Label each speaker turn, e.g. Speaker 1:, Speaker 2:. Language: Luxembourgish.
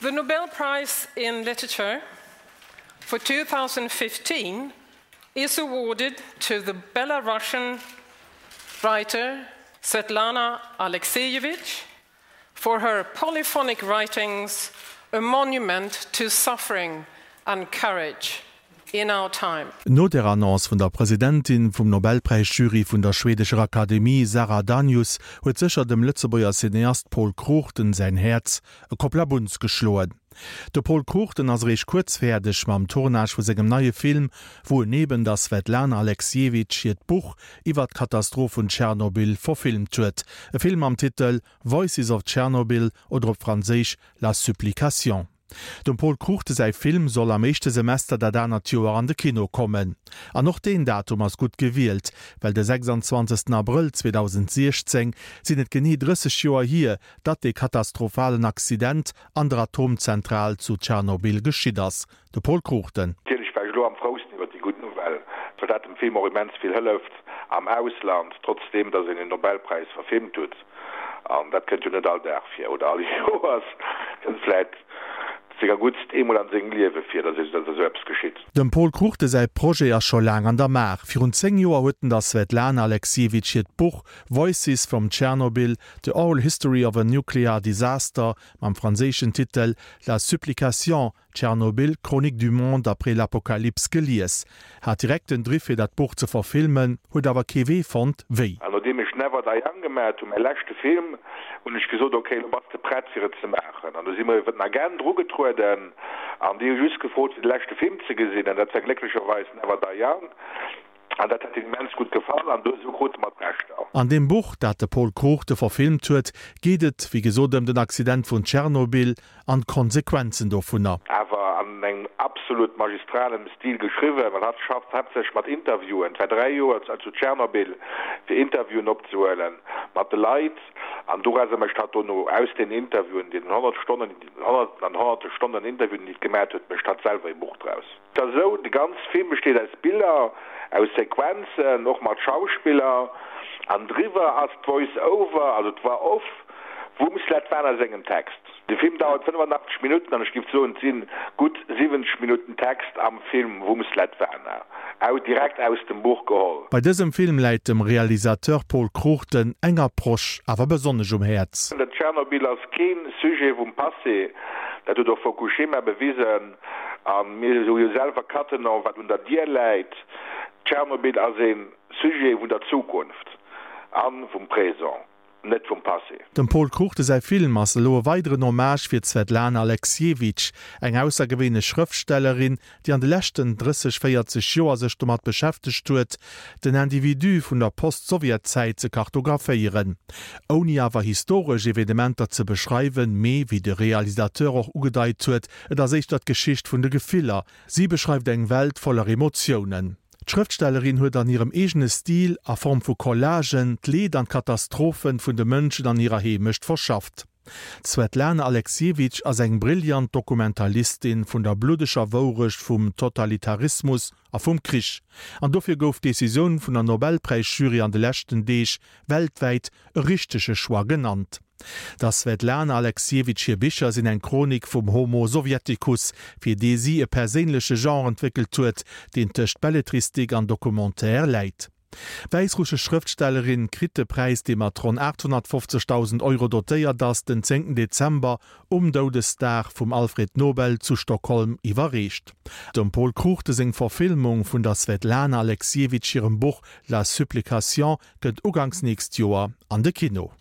Speaker 1: The Nobel Prize in Literature for 2015 is awarded to the Belarusian writer Svetlana Alexievich for her polyphonic writings, a monument to suffering and courage in our time.
Speaker 2: No der Annonce vun der Presidentin vum Nobelpräis-Jury vun der schwedescher Akademie, Sara Danius, huet sécher dem Lëtzebuerger Cineast Pol Cruchten säin Häerz e Kopplabunz geschloen. De Pol Cruchten ass eréischt kuerz fäerdeg mam Tournage vu sengem neie Film, wou en eben der Svetlana Alexievitch hiert Buch iwwer d'Katastroph vun Tschernobyl verfilmt huet. E Film mam Titel Voices of Tschernobyl oder op Franséisch La Supplication. Dem Pol Cruchten säi Film soll am éischte Semester dat anert Joer an de Kino kommen. An och deen Datum ass gutt gewielt, well de 26 Abrëll 2016 sinn et genee 30 Joer hier, datt dee katastrophalen Accident an der Atomzentral zu Tschernobyl geschitt ass. De Pol Cruchten.
Speaker 3: Natierlech war ech elo am frousten iwwer déi gutt Nouvelle, well dat dem Film och immens vill hëlleft am Ausland, trotzdeem datt een en Nobelpräis verfilmt huet. An dat kënnt jo net all Dag vir, oder all Joers, kënnt vläit senger guttst eemol an sengem Liewe vir, datt esou eppes geschitt.
Speaker 2: Dem Pol Cruchten säi Projet ass scho laang an der Maach. Virun 10 Joer huet en der Svetlana Alexievitch hiert Buch Voices from Chernobyl, The Oral History of a Nuclear Disaster mam franséischen Titel La Supplication, Tschernobyl, Chronique du monde après l'apocalypse gelies, hat direkt den Driff fir dat Buch ze verfilmen, huet awer kee Wee fonnt wéi.
Speaker 3: An nodeem ech Never Die Young gemaat hunn, mäi leschte Film, hunn ech gesot, ok, elo bass de prett fir et ze maachen. An du si mer iwwer den Agent erugetrueden an déi hu just gefrot fir de leschte Film ze gesinn an dat war glécklecherweis Never Die Young. An dat hätt hinnen immens gutt gefall an esou krute mer d'Rechter.
Speaker 2: An deem Buch, dat de Pol Cruchten verfilmt huet, geet et wéi gesot ëm den Accident vun Tschernobyl an d'Konsequenzen dovunner.
Speaker 3: Awer an engem absolut magistralem Stil geschriwwen, well hatt schafft haaptsächlech mat Interviewen. Et war 3 Joer zu Tschernobyl fir Interviewen opzehuelen mat de Leit an dorauser mécht hatt dono aus den Interviewen, deenen 100 Stonnen, honnerten an honnerte Stonnen Interviewen déi et gemat huet, mécht hatt selwer ee Buch draus. Et ass esou, de ganz Film besteet aus Biller, aus Sequenzen, och mat Schauspiller, an driwwer ass d'Voice Over, also d'Voix off vum Svetlana sengem Text. De Film dauert 85 Minutten an ech giff soen, et si gutt 70 Minutten Text am Film vum Svetlana, direkt aus dem Buch geholl.
Speaker 2: Bei dësem Film läit dem Realisateur Pol Cruchten eng Approche awer besonnesch um Häerz.
Speaker 3: Dat Tschernobyl ass kee Sujet vum Passé, dat huet och Fukushima bewisen. A mir hu jo selwer Cattenom, wat un der Dier läit. Tschernobyl ass ee Sujet vun der Zukunft a vum Présent, net vum Passé.
Speaker 2: Dem Pol Cruchten säi Film ass elo e weideren Hommage fir d'Svetlana Alexievitch, eng aussergewéinlech Schrëftstellerin, déi an de leschten 30, 40 Joer sech domat beschäftegt huet, den Individu vun der Post-Sowjet-Zäit ze kartographéieren, ouni awer historesch Evenementer ze beschreiwen, mee, wéi de Realisateur och ugedeit huet, Et ass éischter d'Geschicht vun de Gefiller. Si beschreift eng Welt voller Emotiounen. D'Schrëftstellerin huet an hirem eegene Stil, a Form vu Collagen, d'Leed an d'Katastrophen vun de Mënschen an hirer Heemecht verschafft. D'Swetlana Alexievitch ass eng brillant Dokumentalistin vun der bluddeger Wourecht vum Totalitarismus a vum Krich. An dofir gouf d'Decisioun vun der Nobelpräisjury an de leschten Deeg weltwäit e richtege Choix genannt. Der Svetlana Alexievitch hir Bicher sinn eng Chronik vum Homo Sovieticus, fir dee si e perséinleche Genre entwéckelt huet, deen tëscht Belletristik an Documentaire läit. D'wäissrussesch Schrëftstellerin kritt de Präis, dee mat ronn 850.000 Euro dotéiert ass, den zéngten Dezember um Doudesdag vum Alfred Nobel zu Stockholm iwwerreecht. Dem Pol Cruchten seng Verfilmung vun der Svetlana Alexievitch hirem Buch La Supplication kënnt uganks nächst Joer an de Kino.